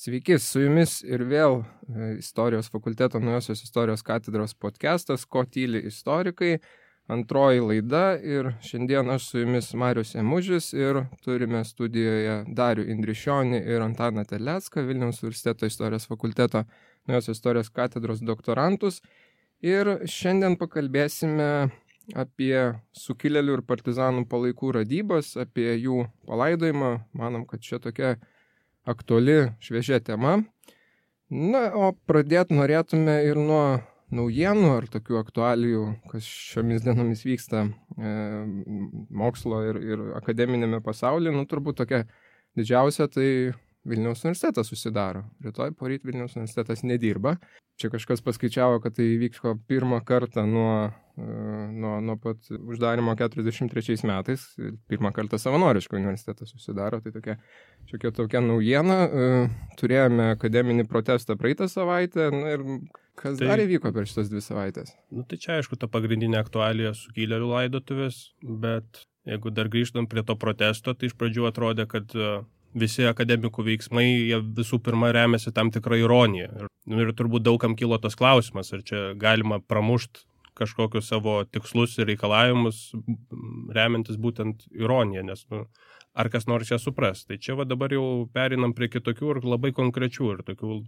Sveiki, su jumis ir vėl Istorijos fakulteto Naujosios istorijos katedros podcastas Ko tyli istorikai, antroji laida ir šiandien aš su jumis Marius Emužis ir turime studijoje Darių Indrišionį ir Antaną Terlecką, Vilniaus universiteto Istorijos fakulteto Naujosios istorijos katedros doktorantus ir šiandien pakalbėsime apie sukilėlių ir partizanų palaikų radybas, apie jų palaidojimą. Manom, kad čia tokia aktuali, šviežia tema. Na, o pradėti norėtume ir nuo naujienų ar tokių aktualijų, kas šiomis dienomis vyksta mokslo ir akademinėme pasaulyje. Nu, turbūt tokia didžiausia, tai Vilniaus universitetas susidaro. Rytoj poryt Vilniaus universitetas nedirba. Čia kažkas paskaičiavo, kad tai vyko pirmą kartą nuo pat uždarimo 43 metais. Pirmą kartą savanoriškai universitetas susidaro. Tai tokia naujiena. Turėjome akademinį protestą praeitą savaitę. Na, ir kas dar įvyko per šitas 2 savaitės? Nu, tai čia aišku ta pagrindinė aktualija sukilėlių laidotuvės, bet jeigu dar grįžtam prie to protesto, tai iš pradžių atrodė, kad visi akademikų veiksmai, jie visų pirma remiasi tam tikrą ironiją. Ir turbūt daugam kilo tas klausimas, ar čia galima pramušti kažkokius savo tikslus ir reikalavimus, remiantis būtent ironiją, nes ar kas nors ją supras. Tai čia dabar jau perinam prie kitokių ir labai konkrečių ir tokių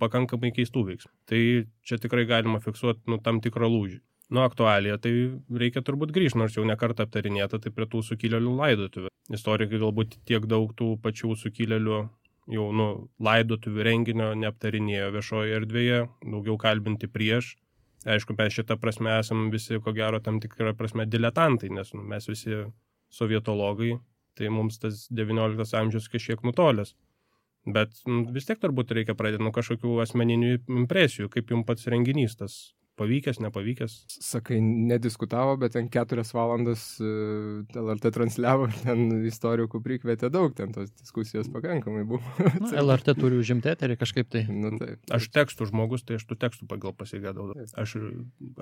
pakankamai keistų veiksmų. Tai čia tikrai galima fiksuoti tam tikrą lūžį. Aktualija, tai reikia turbūt grįžti, nors jau nekartą aptarinėta, tai prie tų sukilėlių laidotuvių. Istorikai galbūt tiek daug tų pačių sukilėlių jau laidotuvių renginio neaptarinėjo viešoje erdvėje, daugiau kalbinti prieš. Aišku, mes šitą prasme esam visi, ko gero, tam tikrą prasme diletantai, nes mes visi sovietologai, tai mums tas 19 amžius kažkiek nutolęs. Bet vis tiek turbūt reikia pradėti nuo kažkokių asmeninių impresijų, kaip jums pats renginys tas pavykęs, nepavykęs. Sakai, nediskutavo, bet ten 4 valandas LRT transliavo, ten istorikų prikvietė daug, ten tos diskusijos pakankamai buvo. LRT turi užimti eterį kažkaip tai. Taip. Aš tekstų žmogus, tai aš tų tekstų pagal pasigėdau. Aš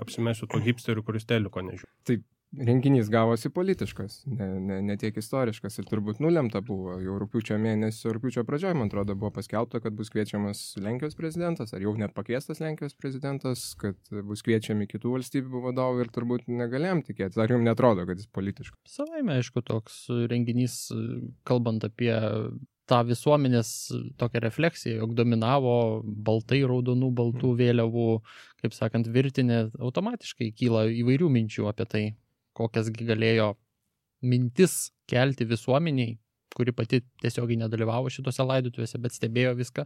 apsimesiu to hipsterių, kuris teliko nežiūrė. Taip, renginys gavosi politiškas, ne tiek istoriškas ir turbūt nulemta buvo. Jau rugpjūčio pradžioje, man atrodo, buvo paskelbta, kad bus kviečiamas Lenkijos prezidentas, ar jau net pakviestas Lenkijos prezidentas, kad bus kviečiami kitų valstybių vadovai ir turbūt negalėjom tikėtis. Ar jums netrodo, kad jis politiškas? Savaime, aišku, toks renginys, kalbant apie tą visuomenės tokią refleksiją, jog dominavo baltai, raudonų, baltų vėliavų, kaip sakant, virtinė, automatiškai kyla įvairių minčių apie tai, kokiasgi galėjo mintis kelti visuomeniai, kuri pati tiesiogiai nedalyvavo šitose laidotuvėse, bet stebėjo viską.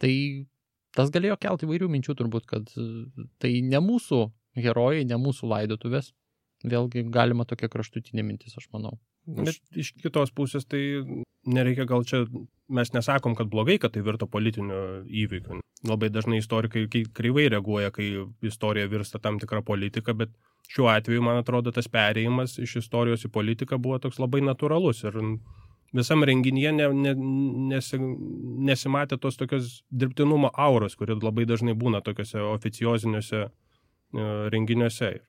Tai tas galėjo kelti įvairių minčių turbūt, kad tai ne mūsų herojai, ne mūsų laidotuvės. Vėlgi galima tokia kraštutinė mintis, aš manau. Bet iš kitos pusės tai nereikia gal čia, mes nesakom, kad blogai, kad tai virto politiniu įvykiu. Labai dažnai istorikai kreivai reaguoja, kai istorija virsta tam tikrą politiką, bet šiuo atveju, man atrodo, tas perėjimas iš istorijos į politiką buvo toks labai natūralus ir visam renginyje nesimatė tos tokios dirbtinumo auros, kuri labai dažnai būna tokiuose oficioziniuose renginiuose.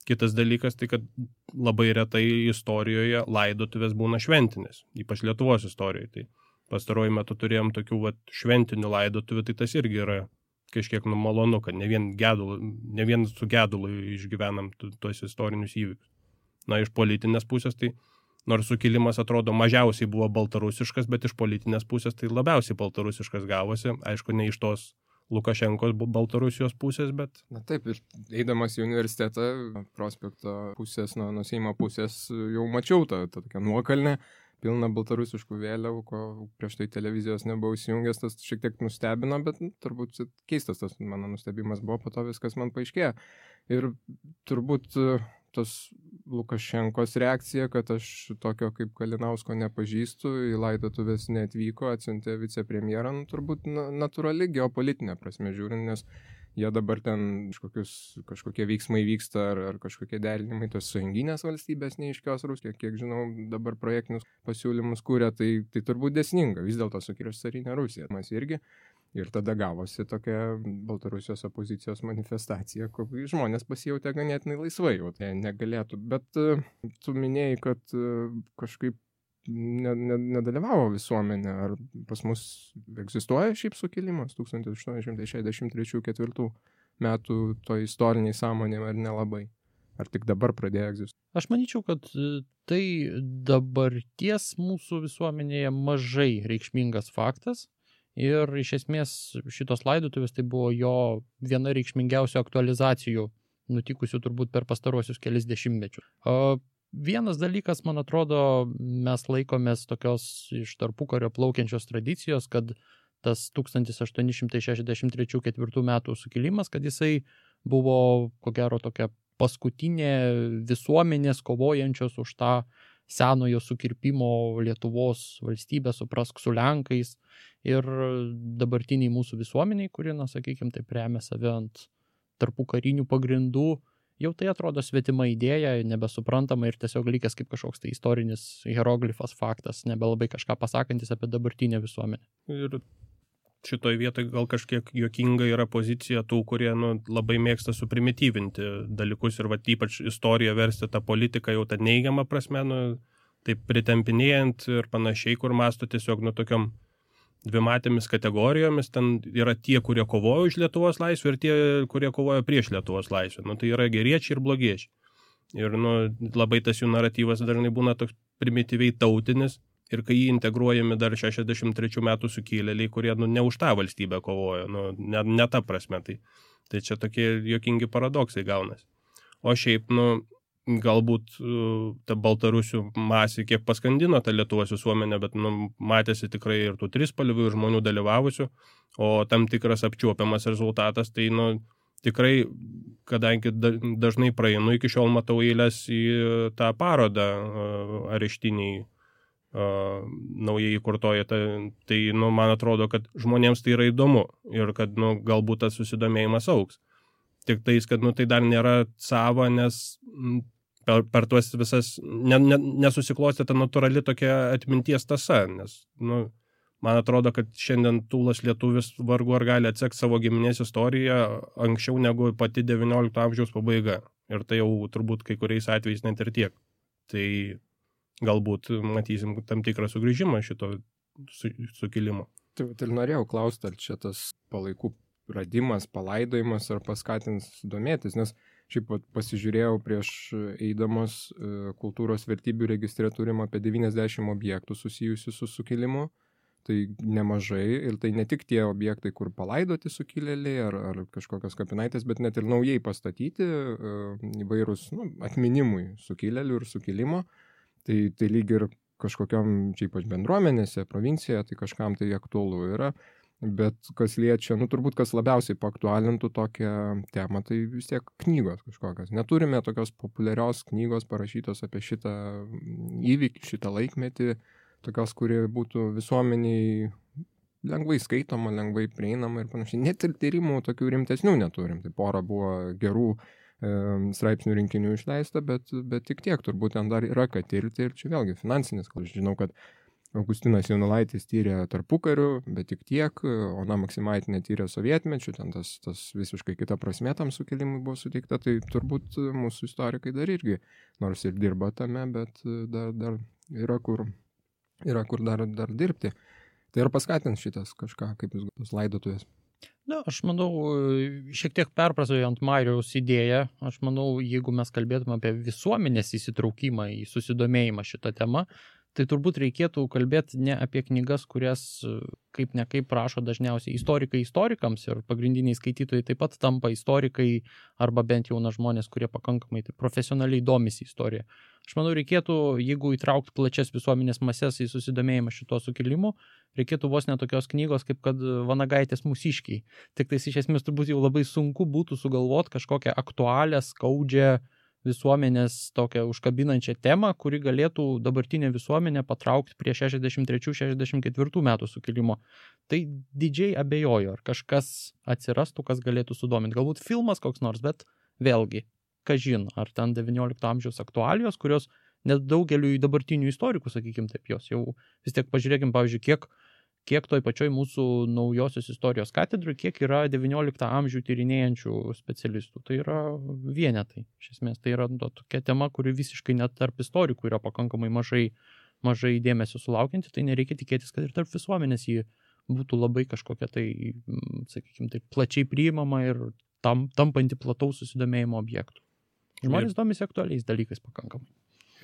Kitas dalykas, tai kad labai retai istorijoje laidotuvės būna šventinės, ypač Lietuvos istorijoje. Tai pastaruoju metu turėjom tokių šventinių laidotuvių, tai tas irgi yra kažkiek malonu, kad ne vien su gedulu išgyvenam tuos istorinius įvykius. Iš politinės pusės, tai nors sukilimas atrodo mažiausiai buvo baltarusiškas, bet iš politinės pusės tai labiausiai baltarusiškas gavosi. Aišku, ne iš tos Lukašenkos Baltarusijos pusės, bet... Na taip, ir eidamas į universitetą, prospekto pusės, nuo Seimo pusės, jau mačiau tą tokią nuokalnę, pilną baltarusiškų vėliavų, ko prieš tai televizijos nebuvau įsijungęs, tas šiek tiek nustebino, bet turbūt keistas tas mano nustebimas buvo, po to viskas man paaiškėjo. Ir turbūt tos Lukašenkos reakcija, kad aš tokio kaip Kalinausko nepažįstu, į laidotuvės neatvyko, atsiuntė vicepremjerą, turbūt natūrali geopolitinė prasme žiūrint, nes jie dabar ten kažkokie veiksmai vyksta ar kažkokie derinimai tos sąjunginės valstybės neiškios Rusija, kiek žinau, dabar projektinius pasiūlymus kūrė, tai turbūt dėsninga, vis dėlto sukirš carinė Rusija, mes irgi. Ir tada gavosi tokia Baltarusijos opozicijos manifestacija, kur žmonės pasijautė ganėtinai laisvai, jau tai negalėtų. Bet tu minėjai, kad kažkaip nedalyvavo visuomenė. Ar pas mus egzistuoja šiaip sukilimas 1863-4 metų to istoriniai sąmonė ar nelabai? Ar tik dabar pradėjo egzistuoti? Aš manyčiau, kad tai dabarties mūsų visuomenėje mažai reikšmingas faktas ir iš esmės šitos laidotuvės tai buvo jo viena reikšmingiausių aktualizacijų nutikusių turbūt per pastarosius kelis dešimtmečius. Vienas dalykas, man atrodo, mes laikomės tokios iš tarpukario plaukiančios tradicijos, kad tas 1863-4 metų sukilimas, kad jisai buvo, ko gero, tokia paskutinė visuomenės kovojančios už tą senojo sukirpimo Lietuvos valstybę, suprask, su Lenkais ir dabartiniai mūsų visuomeniai, kuri, na, sakykime, taip remia save ant tarpukarinių pagrindų, jau tai atrodo svetima idėja, nebesuprantama ir tiesiog likęs kaip kažkoks tai istorinis hieroglifas faktas, nebelabai kažką pasakantis apie dabartinę visuomenę. Ir šitoj vietoj gal kažkiek juokinga yra pozicija tų, kurie labai mėgsta suprimityvinti dalykus ir ypač istoriją versti tą politiką jau tą neigiamą prasme, taip pritempinėjant ir panašiai, kur masto tiesiog tokiom dvimatėmis kategorijomis, ten yra tie, kurie kovojo už Lietuvos laisvę ir tie, kurie kovojo prieš Lietuvos laisvę. Tai yra geriečiai ir blogiečiai. Ir labai tas jų naratyvas dažnai būna toks primityviai tautinis ir kai jį integruojami dar 63 metų sukilėliai, kurie ne už tą valstybę kovojo, ne ta prasme. Tai čia tokie juokingi paradoksai gaunasi. O šiaip, galbūt ta baltarusių masė kiek paskandino tą Lietuvos visuomenę, bet matėsi tikrai ir tų trispalvių ir žmonių dalyvavusių, o tam tikras apčiuopiamas rezultatas, tai tikrai, kadangi dažnai praeinu, iki šiol matau eilės į tą parodą areštiniai naujai įkurtoje, tai man atrodo, kad žmonėms tai yra įdomu ir kad galbūt tas susidomėjimas augs. Tik tais, kad tai dar nėra sava, nes per tuos visas nesusiklostė ta natūrali tokia atminties tasa, nes man atrodo, kad šiandien tūlas lietuvis vargu ar gali atsekti savo giminės istoriją anksčiau negu pati 19 amžiaus pabaiga. Ir tai jau turbūt kai kuriais atvejais net ir tiek. Tai galbūt matysim tam tikrą sugrįžimą šito sukilimo. Tai ir norėjau klausti, ar čia tas palaikų radimas, palaidojimas ar paskatins domėtis, nes šiaip pasižiūrėjau prieš eidamas kultūros vertybių registre turim apie 90 objektų susijusių su sukilimu, tai nemažai ir tai ne tik tie objektai, kur palaidoti sukilėliai ar kažkokios kapinaitės, bet net ir naujai pastatyti įvairūs atminimui sukilėlių ir sukilimo. Tai lyg ir kažkokiam čia ypač bendruomenėse, provincijoje, tai kažkam tai aktualu yra, bet kas liečia, turbūt kas labiausiai paaktualintų tokią temą, tai vis tiek knygos kažkokios. Neturime tokios populiarios knygos parašytos apie šitą įvykį, šitą laikmetį, tokios, kuri būtų visuomeniai lengvai skaitoma, lengvai prieinama ir panašiai. Net ir tyrimų tokių rimtesnių neturim, tai pora buvo gerų straipsnių rinkinių išleista, bet tik tiek, turbūt ten dar yra ką tirti ir čia vėlgi finansinis, aš žinau, kad Augustinas Jaunulaitis tyrė tarpukariu, bet tik tiek, Ona Maksimaitinė tyrė sovietmečiu, ten tas visiškai kita prasmė tam sukilimui buvo suteikta, tai turbūt mūsų istorikai dar irgi, nors ir dirba tame, bet dar yra kur dar dirbti. Tai ar paskatins šitas kažką, kaip jūs tos laidotuvės? Aš manau, šiek tiek perprasojant Mariaus idėją, aš manau, jeigu mes kalbėtume apie visuomenės įsitraukimą į susidomėjimą šitą temą, tai turbūt reikėtų kalbėti ne apie knygas, kurias kaip ne kaip rašo dažniausiai istorikai istorikams ir pagrindiniai skaitytojai taip pat tampa istorikai arba bent jau žmonės, kurie pakankamai profesionaliai domisi istorija. Aš manau, reikėtų, jeigu įtraukti plačias visuomenės mases į susidomėjimą šito sukilimu, reikėtų vos netokios knygos, kaip kad Vanagaitės Mūsiškiai. Tik tais iš esmės turbūt jau labai sunku būtų sugalvoti kažkokią aktualią, skaudžią visuomenės tokią užkabinančią temą, kuri galėtų dabartinę visuomenę patraukti prie 63-64 metų sukilimo. Tai didžiai abejoju, ar kažkas atsirastų, kas galėtų sudominti. Galbūt filmas koks nors, bet vėlgi, kažin, ar ten 19 amžiaus aktualijos, kurios net daugeliu dabartinių istorikų, sakykime taip, jos jau vis tiek pažiūrėkim, pavyzdžiui, kiek toj pačioj mūsų naujosios istorijos katedrui, kiek yra 19 amžių tyrinėjančių specialistų. Tai yra vienetai. Iš esmės, tai yra tokia tema, kuri visiškai net tarp istorikų yra pakankamai mažai mažai dėmesio sulaukianti, tai nereikia tikėtis, kad ir tarp visuomenės jį būtų labai kažkokia tai, sakykime, tai plačiai priimama ir tampanti plataus susidomėjimo objektų. Žmonės domisi aktualiais dalykais pakankamai.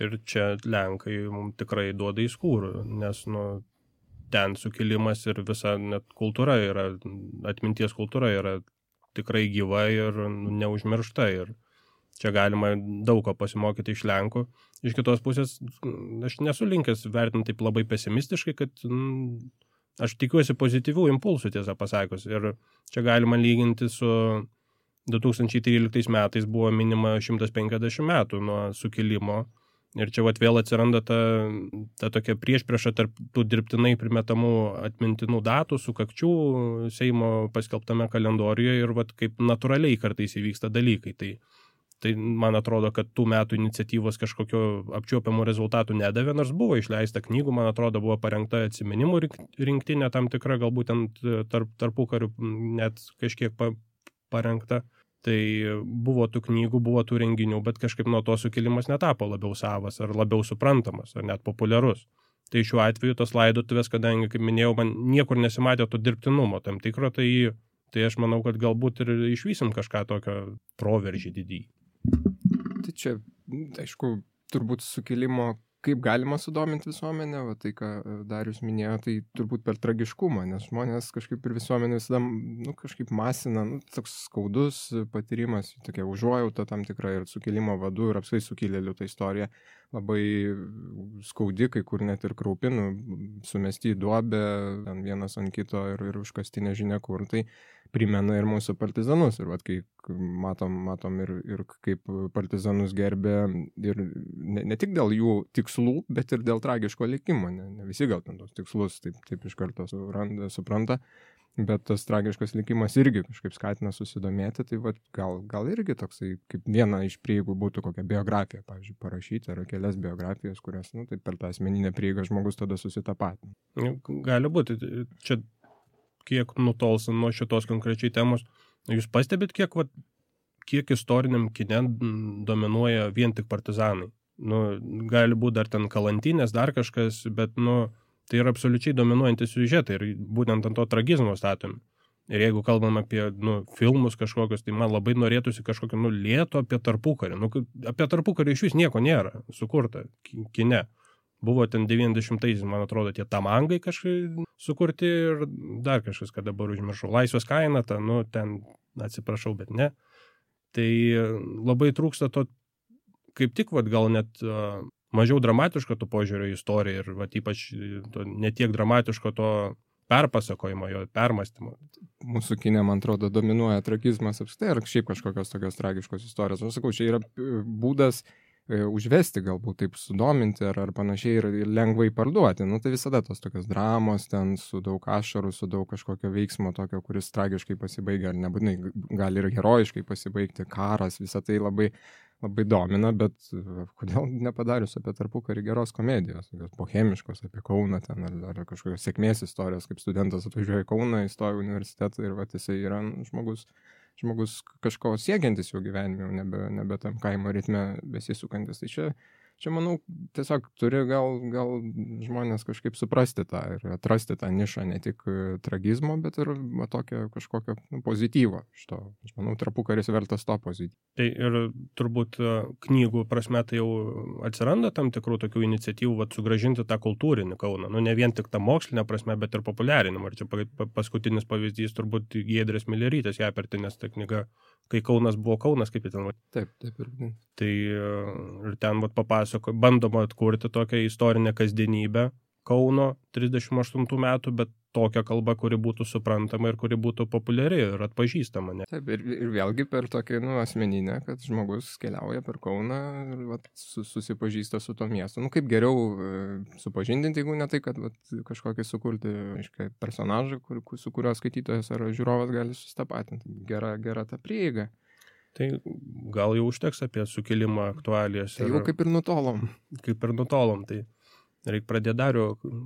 Ir čia Lenkai mums tikrai duoda į skūrų, nes ten sukilimas ir visa net kultūra yra, atminties kultūra yra tikrai gyva ir neužmiršta. Ir čia galima daug ko pasimokyti iš Lenkų. Iš kitos pusės, aš nesu linkęs vertinti taip labai pesimistiškai, kad aš tikiuosi pozityvių impulsų, tiesą pasakius. Ir čia galima lyginti su 2013 metais buvo minima 150 metų nuo sukilimo. Ir čia vėl atsiranda ta tokia priešprieša tarp tų dirbtinai primetamų atmintinų datų, sukakčių Seimo paskelbtame kalendoriuje ir kaip natūraliai kartais įvyksta dalykai. Tai man atrodo, kad tų metų iniciatyvos kažkokio apčiuopiamų rezultatų nedavė, nors buvo išleista knygų, man atrodo, buvo parengta atsiminimų rinktinė tam tikra, galbūt tarpukariu net kažkiek parengta. Tai buvo tų knygų, buvo tų renginių, bet kažkaip nuo to sukilimas netapo labiau savas ar labiau suprantamas ar net populiarus. Tai šiuo atveju tos laidotuvės, kadangi, kaip minėjau, man niekur nesimatė to dirbtinumo tam tikro, tai aš manau, kad galbūt ir išvysim kažką tokio proveržį didįjį. Tai čia, aišku, turbūt sukilimo, kaip galima sudominti visuomenę, tai ką Darius minėjo, tai turbūt per tragiškumą, nes žmonės kažkaip ir visuomenė visada, kažkaip masina, toks skaudus patyrimas, tokia užuojauta tam tikra ir sukilimo vadų ir apskritai sukilėlių ta istorija labai skaudi, kai kur net ir kraupinų, sumesti į duobę, vienas ant kito ir užkasti nežinia kur, tai primena ir mūsų partizanus. Ir kai matom ir kaip partizanus gerbė ir ne tik dėl jų tikslų, bet ir dėl tragiško likimo. Ne visi gal ten tos tikslus taip iš karto supranta, bet tas tragiškas likimas irgi kažkaip skatina susidomėti. Tai gal irgi toksai, kaip viena iš prieigų būtų kokią biografiją, pavyzdžiui, parašyti, ar kelias biografijas, kurias, taip per tą asmeninę prieigą žmogus tada susitapatina. Gali būti. Čia kiek nutolsam nuo šitos konkrečiai temos. Jūs pastebit, kiek istoriniam kine dominuoja vien tik partizanai? Gali būti dar ten kalantinės, dar kažkas, bet, tai yra absoliučiai dominuojantis siužetai ir būtent ant to tragizmo statomi. Ir jeigu kalbam apie, filmus kažkokius, tai man labai norėtųsi kažkokio, lėto apie tarpukarį. Apie tarpukarį iš vis nieko nėra sukurta kine. Buvo ten 90-aisiais, man atrodo, tie tamangai kažkaip sukurti ir dar kažkas, kad dabar užmiršau. Laisvės kaina, ten atsiprašau, bet ne. Tai labai trūksta to, kaip tik, gal net mažiau dramatiško to požiūrio į istoriją ir ypač netiek dramatiško to perpasakojimo, jo permastymo. Mūsų kine, man atrodo, dominuoja tragizmas apskritai ar šiaip kažkokios tokios tragiškos istorijos. Aš sakau, čia yra būdas užvesti, galbūt taip sudominti ar panašiai ir lengvai parduoti. Tai visada tos tokios dramos ten su daug ašarų, su daug kažkokio veiksmo tokio, kuris tragiškai pasibaigia, ar nebūtinai gali ir herojiškai pasibaigti, karas, visą tai labai, labai domina, bet kodėl nepadarius apie tarpukarį geros komedijos, bohemiškos apie Kauną ten, ar kažkokios sėkmės istorijos, kaip studentas atvažiuoja į Kauną, įstoja į universitetą ir jisai yra žmogus kažko siekiantis jau gyvenime, nebe tam kaimo ritme besisukantis. Tai čia manau, tiesiog turi gal žmonės kažkaip suprasti tą ir atrasti tą nišą ne tik tragizmo, bet ir tokio kažkokio pozityvo iš to. Aš manau, tarpukaris vertas to pozityvo. Tai ir turbūt knygų prasme tai jau atsiranda tam tikrų tokių iniciatyvų sugrąžinti tą kultūrinį Kauną. Ne vien tik tą mokslinę prasme, bet ir populiarinimą. Ir čia paskutinis pavyzdys turbūt Giedrės Milerytės Japertinės ta knyga, kai Kaunas buvo Kaunas, kaip ten. Taip ir. Tai ir ten bandoma atkurti tokią istorinę kasdienybę Kauno 38 metų, bet tokią kalbą, kuri būtų suprantama ir kuri būtų populiari ir atpažįstama. Ne? Taip, ir vėlgi per tokią asmeninę, kad žmogus keliauja per Kauną ir susipažįsta su to miestu. Kaip geriau supažindinti, jeigu ne tai, kad kažkokį sukurti personažą, su kurio skaitytojas ar žiūrovas gali susitapatinti. Gera ta prieiga. Tai gal jau užteks apie sukilimą aktualijas. Tai jau kaip ir nutolom. Tai reikia pradėti Darių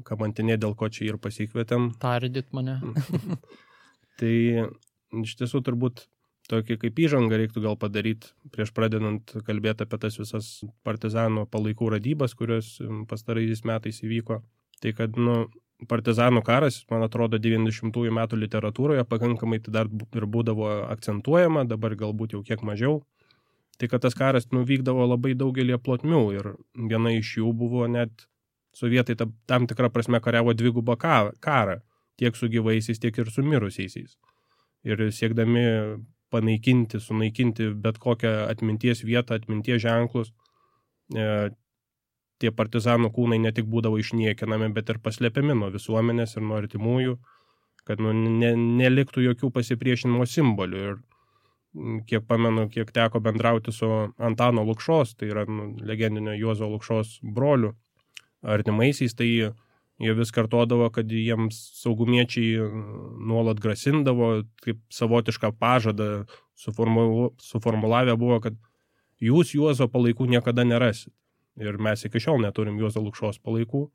kamantinė, dėl ko čia ir pasikvietėm. Tardyt mane. Tai iš tiesų turbūt tokį kaip įžangą reiktų gal padaryti prieš pradedant kalbėti apie tas visas partizanų palaikų radybas, kurios pastaraisiais metais įvyko. Tai kad, partizanų karas, man atrodo, 90-ųjų metų literatūroje pakankamai tai dar ir būdavo akcentuojama, dabar galbūt jau kiek mažiau. Tai kad tas karas vykdavo labai daugelį plotmių ir viena iš jų buvo net sovietai tam tikrą prasme kariavo dvigubą karą, tiek su gyvaisiais, tiek ir su mirusiaisiais. Ir siekdami sunaikinti bet kokią atminties vietą, atminties ženklus, tie partizanų kūnai ne tik būdavo išniekinami, bet ir paslėpiami nuo visuomenės ir nuo artimųjų, kad neliktų jokių pasipriešinimo simbolių. Ir kiek pamenu, kiek teko bendrauti su Antano Lukšos, tai yra legendinio Juozo Lukšos brolių artimaisiais, tai jie vis kartodavo, kad jiems saugumiečiai nuolat grasindavo, kaip savotišką pažadą suformulavę buvo, kad jūs Juozo palaikų niekada nerasit. Ir mes iki šiol neturim Juozo Lukšos palaikų,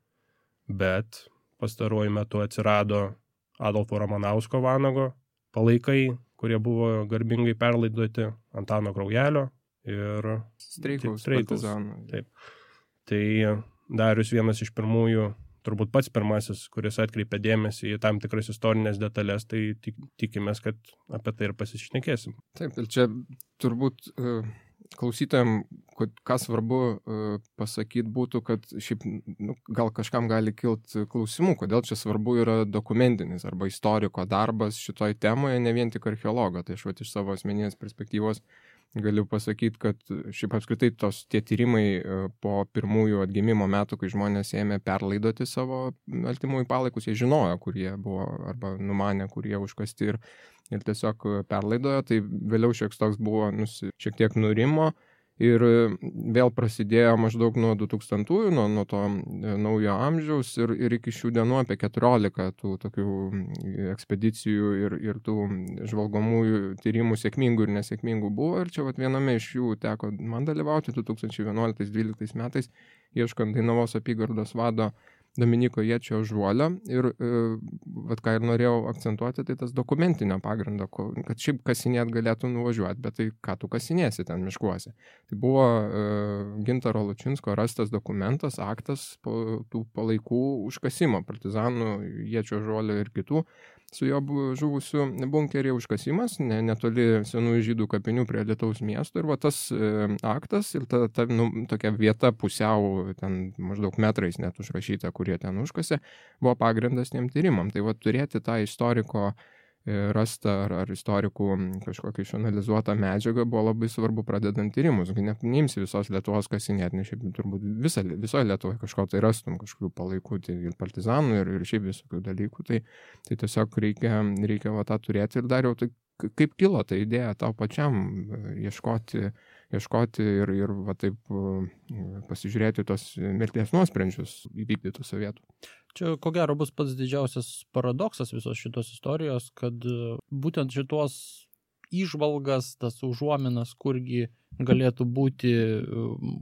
bet pastaruoju metu atsirado Adolfo Ramanausko Vanago palaikai, kurie buvo garbingai perlaidoti Antano Kraujelio ir Streikaus partizanų. Taip. Tai Darius vienas iš pirmųjų, turbūt pats pirmasis, kuris atkreipė dėmesį į tam tikras istorinės detalės, tai tikimės, kad apie tai ir pasišnekėsim. Taip, ir čia turbūt klausytojams, ką svarbu pasakyti būtų, kad šiaip gal kažkam gali kilti klausimų, kodėl čia svarbu yra dokumentinis arba istoriko darbas šitoj temoje, ne vien tik archeologo. Tai aš iš savo asmeninės perspektyvos galiu pasakyti, kad šiaip apskritai tie tyrimai po pirmųjų atgimimo metų, kai žmonės ėmė perlaidoti savo artimųjų palaikus, jie žinojo, kur jie buvo arba numanė, kur jie užkasti ir tiesiog perlaidojo, tai vėliau šiek toks buvo šiek tiek nurimo ir vėl prasidėjo maždaug nuo 2000-ųjų, nuo to naujo amžiaus ir iki šių dienų apie 14 tų tokių ekspedicijų ir tų žvalgomųjų tyrimų sėkmingų ir nesėkmingų buvo ir čia viename iš jų teko man dalyvauti 2011-2012 metais, ieškant Dainavos apygardos vado Dominiko Ječio Žuolio ir ką ir norėjau akcentuoti, tai tas dokumentinio pagrindo, kad šiaip kasinėt galėtų nuvažiuoti, bet tai ką tu kasinėsi ten miškuose. Tai buvo Gintaro Lučinsko rastas dokumentas, aktas tų palaikų užkasimo, partizanų Ječio Žuolio ir kitų su jo žuvusių bunkerį užkasimas, netoli senųjų žydų kapinių prie Lietaus miesto ir tas aktas ir ta tokia vieta pusiau ten maždaug metrais net užrašyta, kurie ten užkasė, buvo pagrindas tiem tyrimam. Tai turėti tą istoriko rastą ar istorikų kažkokią išanalizuotą medžiagą buvo labai svarbu pradedant tyrimus. Neimsi visos Lietuvos kasinėti, nes šiaip turbūt visoje Lietuvoje kažko tai rastum, kažkokių palaikų, tai ir partizanų, ir šiaip visokių dalykų. Tai tiesiog reikia tą turėti ir dar jau tai kaip kilo ta idėja tau pačiam ieškoti ir taip pasižiūrėti tos mirties nuosprendžius įvykdytų sovietų. Čia, ko gero, bus pats didžiausias paradoksas visos šitos istorijos, kad būtent šitos įžvalgas, tas užuominas, kurgi galėtų būti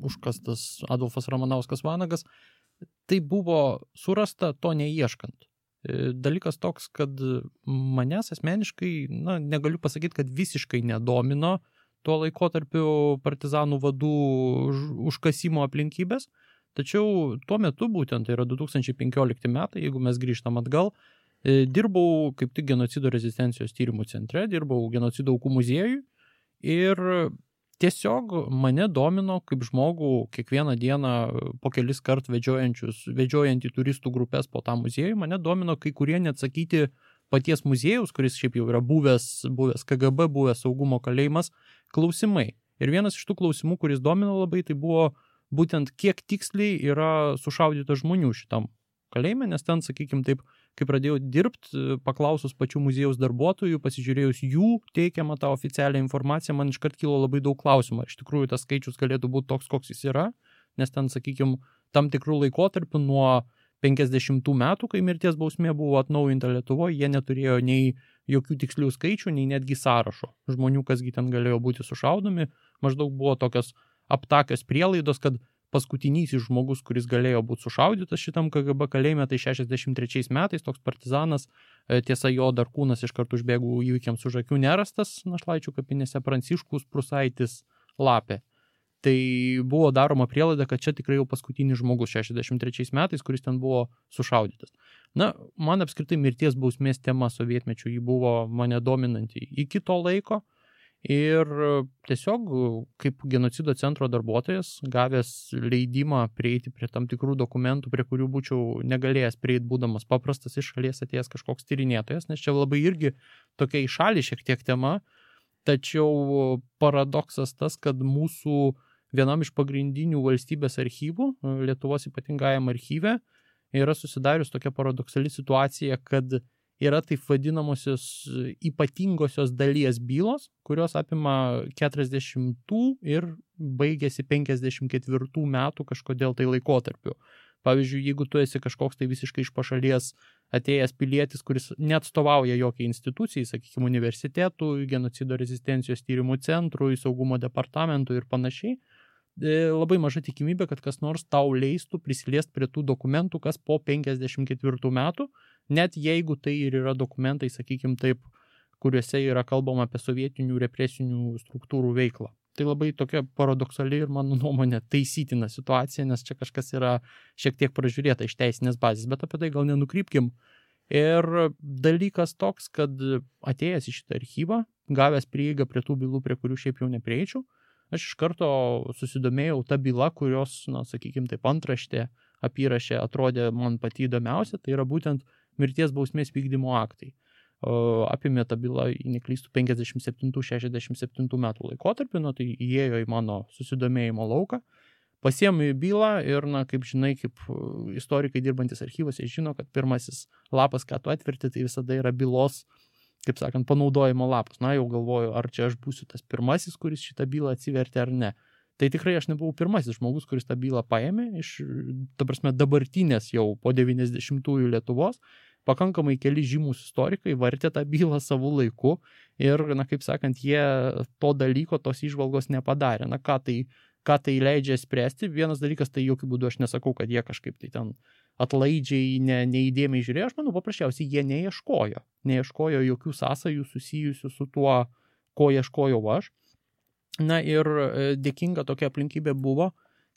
užkastas Adolfas Ramanauskas Vanagas, tai buvo surasta to neieškant. Dalykas toks, kad manęs asmeniškai, negaliu pasakyti, kad visiškai nedomino tuo laikotarpiu partizanų vadų užkasimo aplinkybės, tačiau tuo metu būtent, tai yra 2015 metai, jeigu mes grįžtam atgal, dirbau kaip tik genocido rezistencijos tyrimų centre, dirbau genocido aukų muziejui ir tiesiog mane domino kaip žmogų kiekvieną dieną po kelis kart vedžiojantį turistų grupės po tą muziejų, mane domino kai kurie neatsakyti paties muziejaus, kuris šiaip jau yra buvęs KGB, buvęs saugumo kalėjimas, klausimai. Ir vienas iš tų klausimų, kuris domino labai, tai buvo būtent kiek tiksliai yra sušaudyta žmonių šitam kalėjime, nes ten, sakykime taip, kai pradėjau dirbti, paklausus pačių muziejaus darbuotojų, pasižiūrėjus jų teikiamą tą oficialią informaciją, man iškart kilo labai daug klausimų. Iš tikrųjų, tas skaičius galėtų būti toks, koks jis yra, nes ten, sakykime, tam tikrų laikotarpių nuo 50 metų, kai mirties bausmė buvo atnaujinta Lietuvoje, jie neturėjo nei jokių tikslių skaičių, nei netgi sąrašo žmonių, kasgi ten galėjo būti sušaudomi. Maždaug buvo tokios aptakios prielaidos, kad paskutinysis žmogus, kuris galėjo būti sušaudytas šitam KGB kalėjime, tai 63 metais toks partizanas, tiesa jo dar kūnas iš karto užbėgų įvykiams už akių nerastas Našlaičių kapinėse, Pranciškus Prusaitis Lapė. Tai buvo daroma prielaida, kad čia tikrai jau paskutinis žmogus 63 metais, kuris ten buvo sušaudytas. Na, man apskritai mirties bausmės tema sovietmečių jį buvo mane dominanti iki to laiko ir tiesiog kaip genocido centro darbuotojas, gavęs leidimą prieiti prie tam tikrų dokumentų, prie kurių būčiau negalėjęs prieiti, būdamas paprastas iš šalies atėjęs kažkoks tyrinėtojas, nes čia labai irgi tokia į šalį šiek tiek tema, tačiau paradoksas tas, kad mūsų vienam iš pagrindinių valstybės archyvų, Lietuvos ypatingajam archyve, yra susidarius tokia paradoksali situacija, kad yra taip vadinamosios ypatingosios dalies bylos, kurios apima 40 ir baigėsi 54 metų kažkodėl tai laikotarpiu. Pavyzdžiui, jeigu tu esi kažkoks tai visiškai iš pašalies atėjęs pilietis, kuris neatstovauja jokiai institucijai, sakykime, universitetų, genocido rezistencijos tyrimų centrui, saugumo departamentui ir panašiai, labai maža tikimybė, kad kas nors tau leistų prisiliest prie tų dokumentų, kas po 54 metų, net jeigu tai ir yra dokumentai, sakykime taip, kuriuose yra kalbama apie sovietinių represinių struktūrų veiklą. Tai labai tokia paradoksali ir mano nuomonė taisytina situacija, nes čia kažkas yra šiek tiek pražiūrėta iš teisinės bazės, bet apie tai gal nenukrypkim. Ir dalykas toks, kad atėjęs į šitą archyvą, gavęs prieigą prie tų bylų, prie kurių šiaip jau neprieičiau, aš iš karto susidomėjau tą bylą, kurios, sakykime, taip antraštė apyrašė atrodė man pati įdomiausia, tai yra būtent mirties bausmės vykdymo aktai. Apimė tą bylą, neklystų, 57-67 metų laikotarpį, tai įėjo į mano susidomėjimo lauką, pasiėmė bylą ir, kaip žinai, kaip istorikai dirbantis archyvose žino, kad pirmasis lapas, ką tu atverti, tai visada yra bylos, kaip sakant, panaudojimo lapas. Jau galvoju, ar čia aš būsiu tas pirmasis, kuris šitą bylą atsivertė ar ne. Tai tikrai aš nebuvau pirmasis žmogus, kuris tą bylą paėmė iš, ta prasme, dabartinės jau po 90-ųjų Lietuvos. Pakankamai keli žymūs istorikai vartė tą bylą savo laiku ir, kaip sakant, jie to dalyko, tos įžvalgos nepadarė. Ką tai leidžia spręsti? Vienas dalykas, tai jokių būdų aš nesakau, kad jie kažkaip tai ten atlaidžiai, neįdėmiai žiūrėjo. Aš manau, paprasčiausiai jie neieškojo jokių sąsajų susijusių su tuo, ko ieškojau aš. Ir dėkinga tokia aplinkybė buvo,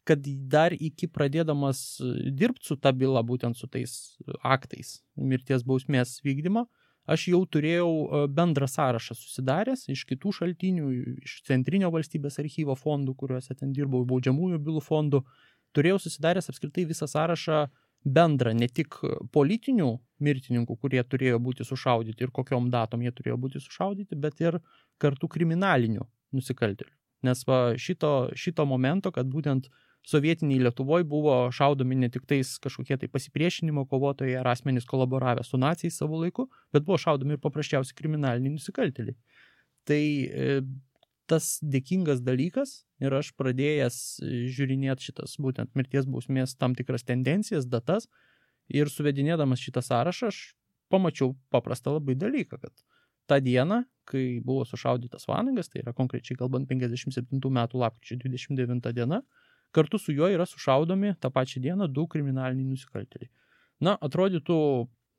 kad dar iki pradėdamas dirbti su ta byla, būtent su tais aktais mirties bausmės vykdymo, aš jau turėjau bendrą sąrašą susidaręs iš kitų šaltinių, iš Centrinio valstybės archyvo fondų, kuriuose ten dirbau, baudžiamųjų bylų fondų, turėjau susidaręs apskritai visą sąrašą bendrą, ne tik politinių mirtininkų, kurie turėjo būti sušaudyti ir kokiom datom jie turėjo būti sušaudyti, bet ir kartu kriminalinių nusikaltėlių. Nes šito momento, kad būtent sovietiniai Lietuvoje buvo šaudomi ne tik tais kažkokie tai pasipriešinimo kovotojai ar asmenys kolaboravę su naciais savo laiku, bet buvo šaudomi ir paprasčiausiai kriminaliniai nusikaltėliai. Tai tas dėkingas dalykas ir aš pradėjęs žiūrinėti šitas būtent mirties bausmės tam tikras tendencijas, datas ir suvedinėdamas šitą sąrašą, aš pamačiau paprastą labai dalyką, kad tą dieną, kai buvo sušaudytas Vanagas, tai yra konkrečiai kalbant 57 metų lapkričio 29 diena, kartu su juo yra sušaudomi tą pačią dieną 2 kriminaliniai nusikaltėliai. Atrodytų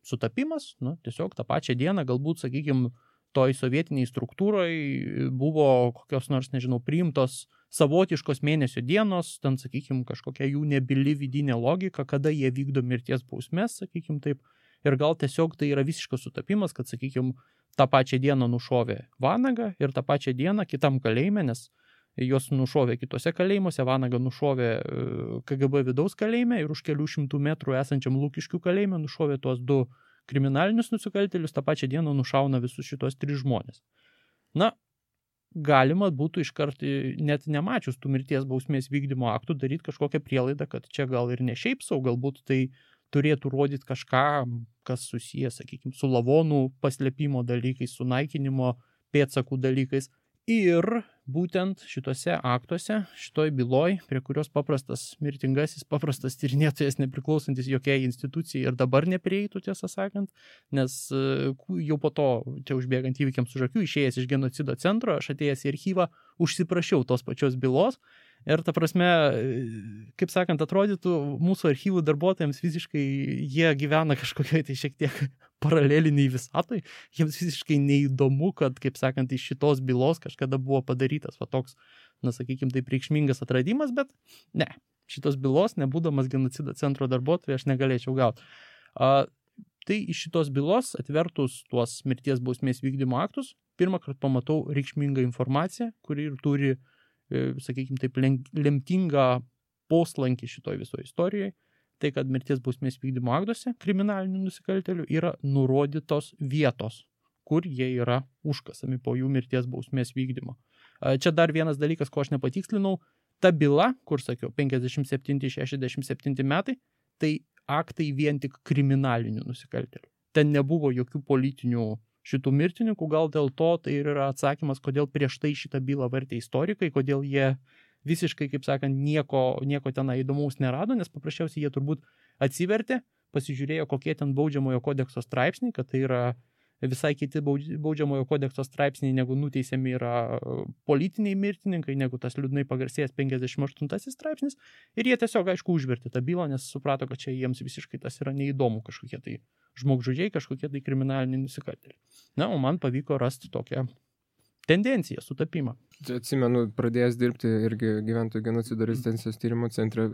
sutapimas, tiesiog tą pačią dieną, galbūt, sakykime, toj sovietiniai struktūrai buvo kokios nors, priimtos savotiškos mėnesio dienos, ten, sakykime, kažkokia jų nebyli vidinė logika, kada jie vykdo mirties bausmės, sakykime taip, ir gal tiesiog tai yra visiškas sutapimas, kad, sakykime, tą pačią dieną nušovė Vanagą ir tą pačią dieną kitam kalėjime, nes jos nušovė kitose kalėjimuose, Vanagą nušovė KGB vidaus kalėjime ir už kelių šimtų metrų esančiam Lukiškių kalėjime nušovė tuos 2 kriminalinius nusikaltėlius, tą pačią dieną nušauna visus šitos 3 žmonės. Galima būtų iškart, net nemačius tų mirties bausmės vykdymo aktų, daryti kažkokią prielaidą, kad čia gal ir ne šiaip sau, galbūt tai turėtų rodyti kažką, kas susijęs, sakykime, su lavonų paslėpimo dalykais, su naikinimo pėdsakų dalykais. Ir būtent šitose aktuose, šitoj byloj, prie kurios paprastas mirtingasis, paprastas tyrinėtojas nepriklausantis jokiai institucijai ir dabar neprieitų, tiesą sakant, nes jau po to, čia užbėgant įvykiams už akių, išėjęs iš genocido centro, aš atėjęs į archyvą, užsiprašiau tos pačios bylos Ir ta prasme, kaip sakant, atrodytų mūsų archyvų darbuotojams visiškai jie gyvena kažkokiai tai šiek tiek paraleliniai visatoj. Jiems visiškai neįdomu, kad, kaip sakant, iš šitos bylos kažkada buvo padarytas va toks, na, sakykim, taip reikšmingas atradimas, bet ne, šitos bylos, nebūdamas genocido centro darbuotojai, aš negalėčiau gauti. Tai iš šitos bylos atvertus tuos mirties bausmės vykdymo aktus, pirmą kartą pamatau reikšmingą informaciją, kuri ir turi, sakykime, taip lemtingą poslankį šitoj visoje istorijoje, tai kad mirties bausmės vykdymo aktuose kriminalinių nusikaltėlių yra nurodytos vietos, kur jie yra užkasami po jų mirties bausmės vykdymo. Čia dar vienas dalykas, ko aš nepatikslinau, ta byla, kur sakiau, 57-67 metai, tai aktai vien tik kriminalinių nusikaltėlių. Ten nebuvo jokių politinių šitų mirtininkų, gal dėl to tai yra atsakymas, kodėl prieš tai šitą bylą vartė istorikai, kodėl jie visiškai, kaip sakant, nieko ten įdomaus nerado, nes paprasčiausiai jie turbūt atsivertė, pasižiūrėjo, kokie ten baudžiamojo kodekso straipsniai, kad tai yra visai kiti baudžiamojo kodekso straipsniai, negu nuteisiami yra politiniai mirtininkai, negu tas liūdnai pagarsėjęs 58 straipsnis. Ir jie tiesiog, aišku, užvertė tą bylą, nes suprato, kad čia jiems visiškai tas yra neįdomu, kažkokie tai žmogžudžiai, kažkokie tai kriminaliniai nusikaltėliai. Na, o man pavyko rasti tokią tendenciją, sutapimą. Atsimenu, pradėjęs dirbti irgi gyventojų genocido rezistencijos tyrimo centre,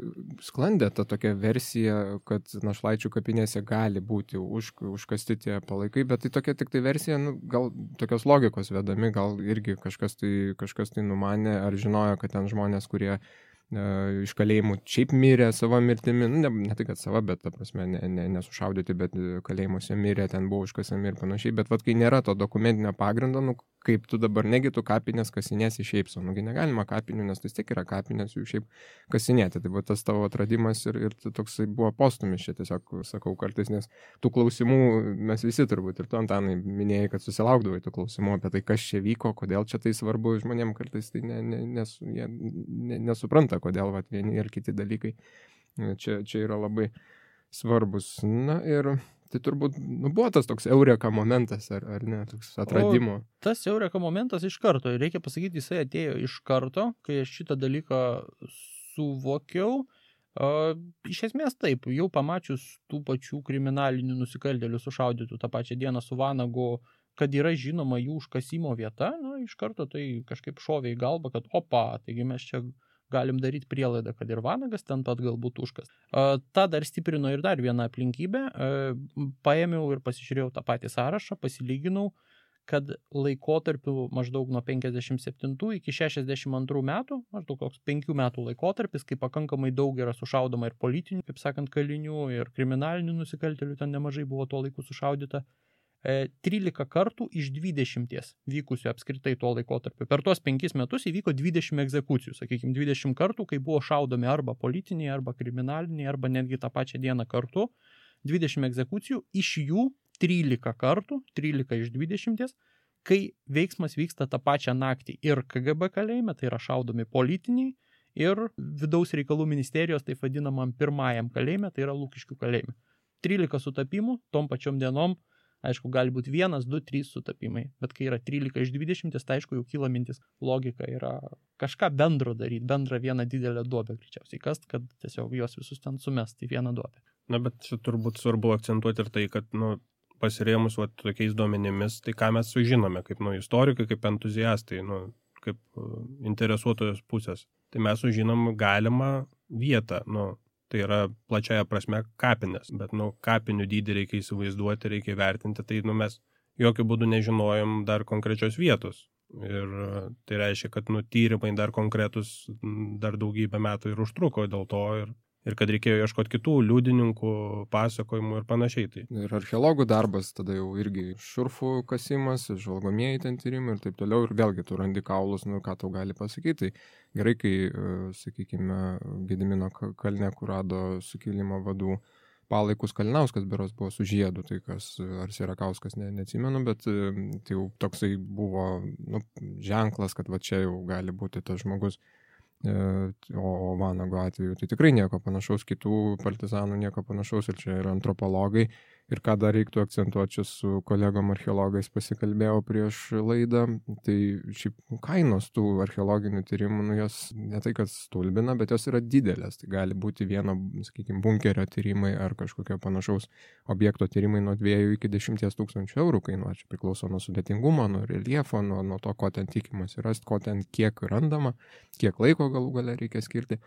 sklandė ta tokia versija, kad Našlaičių kapinėse gali būti užkasti tie palaikai, bet tai tokia tik tai versija, gal tokios logikos vedami, gal irgi kažkas tai numanė ar žinojo, kad ten žmonės, kurie iš kalėjimų šiaip mirė savo mirtimi, ne tai, kad sava, bet ta prasme nesušaudyti, bet kalėjimuose mirė, ten buvo užkasami ir panašiai, bet kai nėra to dokumentinio pagrindo, kaip tu dabar negi tu kapinės kasinėsi šiaip sau, negalima kapinių, nes tai tik yra kapinės jų šiaip kasinėti, tai buvo tas tavo atradimas ir toksai buvo postumis, čia tiesiog sakau kartais, nes tų klausimų mes visi turbūt ir tu, Antanai, minėjai, kad susilaukdavai tų klausimų apie tai, kas čia vyko, kodėl čia tai svarbu, žmonėm kartais tai jie nesupranta, kodėl vieni ir kiti dalykai čia yra labai svarbus. Na ir tai turbūt buvo tas toks eureka momentas, ar ne, toks atradimo. Tas eureka momentas iš karto, reikia pasakyti, jisai atėjo iš karto, kai aš šitą dalyką suvokiau. Iš esmės taip, jau pamačius tų pačių kriminalinių nusikaltėlių sušaudytų tą pačią dieną su Vanagu, kad yra žinoma jų užkasimo vieta, iš karto tai kažkaip šovė į galvą, kad taigi mes čia galim daryti prielaidą, kad ir Vanagas ten pat galbūt užkas. Ta dar stiprino ir dar vieną aplinkybę. Paėmiau ir pasižiūrėjau tą patį sąrašą, pasilyginau, kad laikotarpiu maždaug nuo 57 iki 62 metų, maždaug koks 5 metų laikotarpis, kai pakankamai daug yra sušaudoma ir politinių, kaip sakant, kalinių, ir kriminalinių nusikaltėlių, ten nemažai buvo tuo laiku sušaudyta. 13 kartų iš 20 vykusių apskritai tuo laikotarpiu. Per tuos 5 metus įvyko 20 egzekucijų, sakykime, 20 kartų, kai buvo šaudomi arba politiniai, arba kriminaliniai, arba netgi tą pačią dieną kartu. 20 egzekucijų, iš jų 13 kartų, 13 iš 20, kai veiksmas vyksta tą pačią naktį ir KGB kalėjime, tai yra šaudomi politiniai, ir vidaus reikalų ministerijos, taip vadinamam pirmajam kalėjime, tai yra Lukiškių kalėjime. 13 sutapimų, tom pačiom dienom. Aišku, gali būti 1, 2, 3 sutapimai, bet kai yra 13 iš 20, tai aišku, jau kyla mintis, logika yra kažką bendro daryti, bendrą vieną didelę duobę greičiausiai kast, kad tiesiog juos visus ten sumest į vieną duobę. Na, bet čia turbūt svarbu akcentuoti ir tai, kad, pasirėmus tokiais duomenimis, tai ką mes sužinome, kaip istorikai, kaip entuziastai, kaip interesuotojos pusės. Tai mes sužinom galimą vietą, tai yra plačiaja prasme kapinės, bet kapinių dydį reikia įsivaizduoti, reikia vertinti, tai mes jokių būdų nežinojom dar konkrečios vietos. Ir tai reiškia, kad tyrimai dar konkretus dar daugybę metų ir užtruko dėl to ir kad reikėjo ieškoti kitų liudininkų, pasakojimų ir panašiai. Tai. Ir archeologų darbas, tada jau irgi šurfų kasimas, žvalgomieji ten tyrimai ir taip toliau. Ir vėlgi tu randi kaulus, ką tau gali pasakyti. Tai gerai, kai, sakykime, Gedimino kalne, kur rado sukilimo vadų palaikus Kalinauskas beros buvo su žiedu, tai kas, ar Sierakauskas, neatsimenu, bet tai jau toksai buvo ženklas, kad čia jau gali būti tas žmogus. o Vanago atveju tai tikrai nieko panašaus, kitų partizanų nieko panašaus, ir čia yra antropologai. Ir ką dar reiktų akcentuoti, čia su kolegom archeologais pasikalbėjau prieš laidą, tai šiaip kainos tų archeologinių tyrimų, jos ne tai, kad stulbina, bet jos yra didelės. Tai gali būti vieno, sakykime, bunkerio tyrimai ar kažkokio panašaus objekto tyrimai nuo 2 iki 10 tūkstančių eurų kainuoja. Čia priklauso nuo sudėtingumo, nuo reljefo, nuo to, ko ten tikimasi rasti, ko ten kiek randama, kiek laiko galų gale reikia skirti.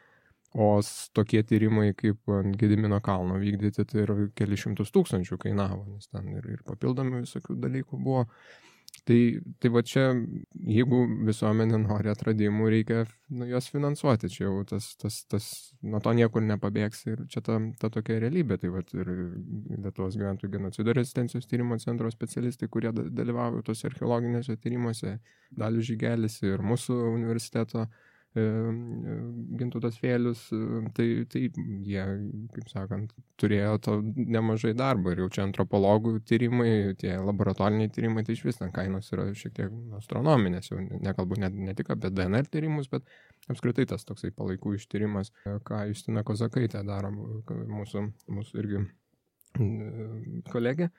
O tokie tyrimai kaip ant Gedimino kalno vykdyti, tai ir keli šimtus tūkstančių kainavo, nes ten ir papildomi visokių dalykų buvo. Tai va čia, jeigu visuomenė nori atradimų, reikia juos finansuoti. Čia jau tas nuo to niekur nepabėgs ir čia ta tokia realybė. Tai va ir Lietuvos gyventojų genocido rezistencijos tyrimo centro specialistai, kurie dalyvauja tose archeologinėse tyrimuose, Dalius Žygelis ir mūsų universiteto Gintautas Vėlius, tai jie, kaip sakant, turėjo to nemažai darbo. Ir jau čia antropologų tyrimai, tie laboratoriniai tyrimai, tai iš vis ten kainos yra šiek tiek astronominės. Jau nekalbu ne tik apie DNR tyrimus, bet apskritai tas toksai palaikų ištyrimas, ką Justina Kozakaitė daro, mūsų irgi kolegė.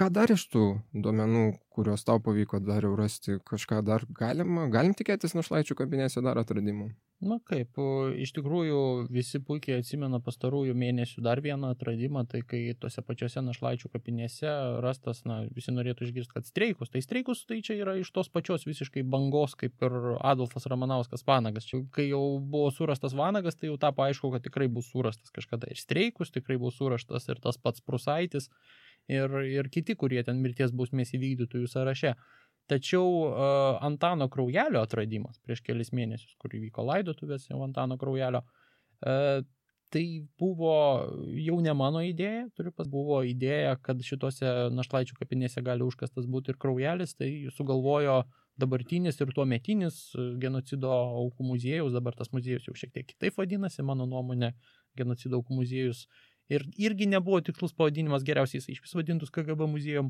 Ką dar iš tų duomenų, kuriuos tau pavyko dar jau rasti, kažką dar galim tikėtis Našlaičių kapinėse dar atradimų? Na kaip, iš tikrųjų visi puikiai atsimena pastarųjų mėnesių dar vieną atradimą, tai kai tose pačiose Našlaičių kapinėse rastas, visi norėtų išgirsti, kad streikus. Tai streikus tai čia yra iš tos pačios visiškai bangos, kaip ir Adolfas Ramanauskas Vanagas. Čia, kai jau buvo surastas Vanagas, tai jau tapo aišku, kad tikrai bus surastas kažkada ir streikus, tikrai bus surastas ir tas pats Prusaitis. Ir kiti, kurie ten mirties bausmės įvykdytųjų sąraše. Tačiau Antano Kraujelio atradimas prieš kelis mėnesius, kur įvyko laidotuvės jau Antano Kraujelio, tai buvo jau ne mano idėja, buvo idėja, kad šitose Našlaičių kapinėse gali užkastas būti ir Kraujelis, tai sugalvojo dabartinis ir tuometinis genocido aukų muziejus, dabar tas muziejus jau šiek tiek kitaip vadinasi, mano nuomonė, genocido aukų muziejus. Ir irgi nebuvo tikslus pavadinimas, geriausiai jisai iš vis vadintus KGB muziejum,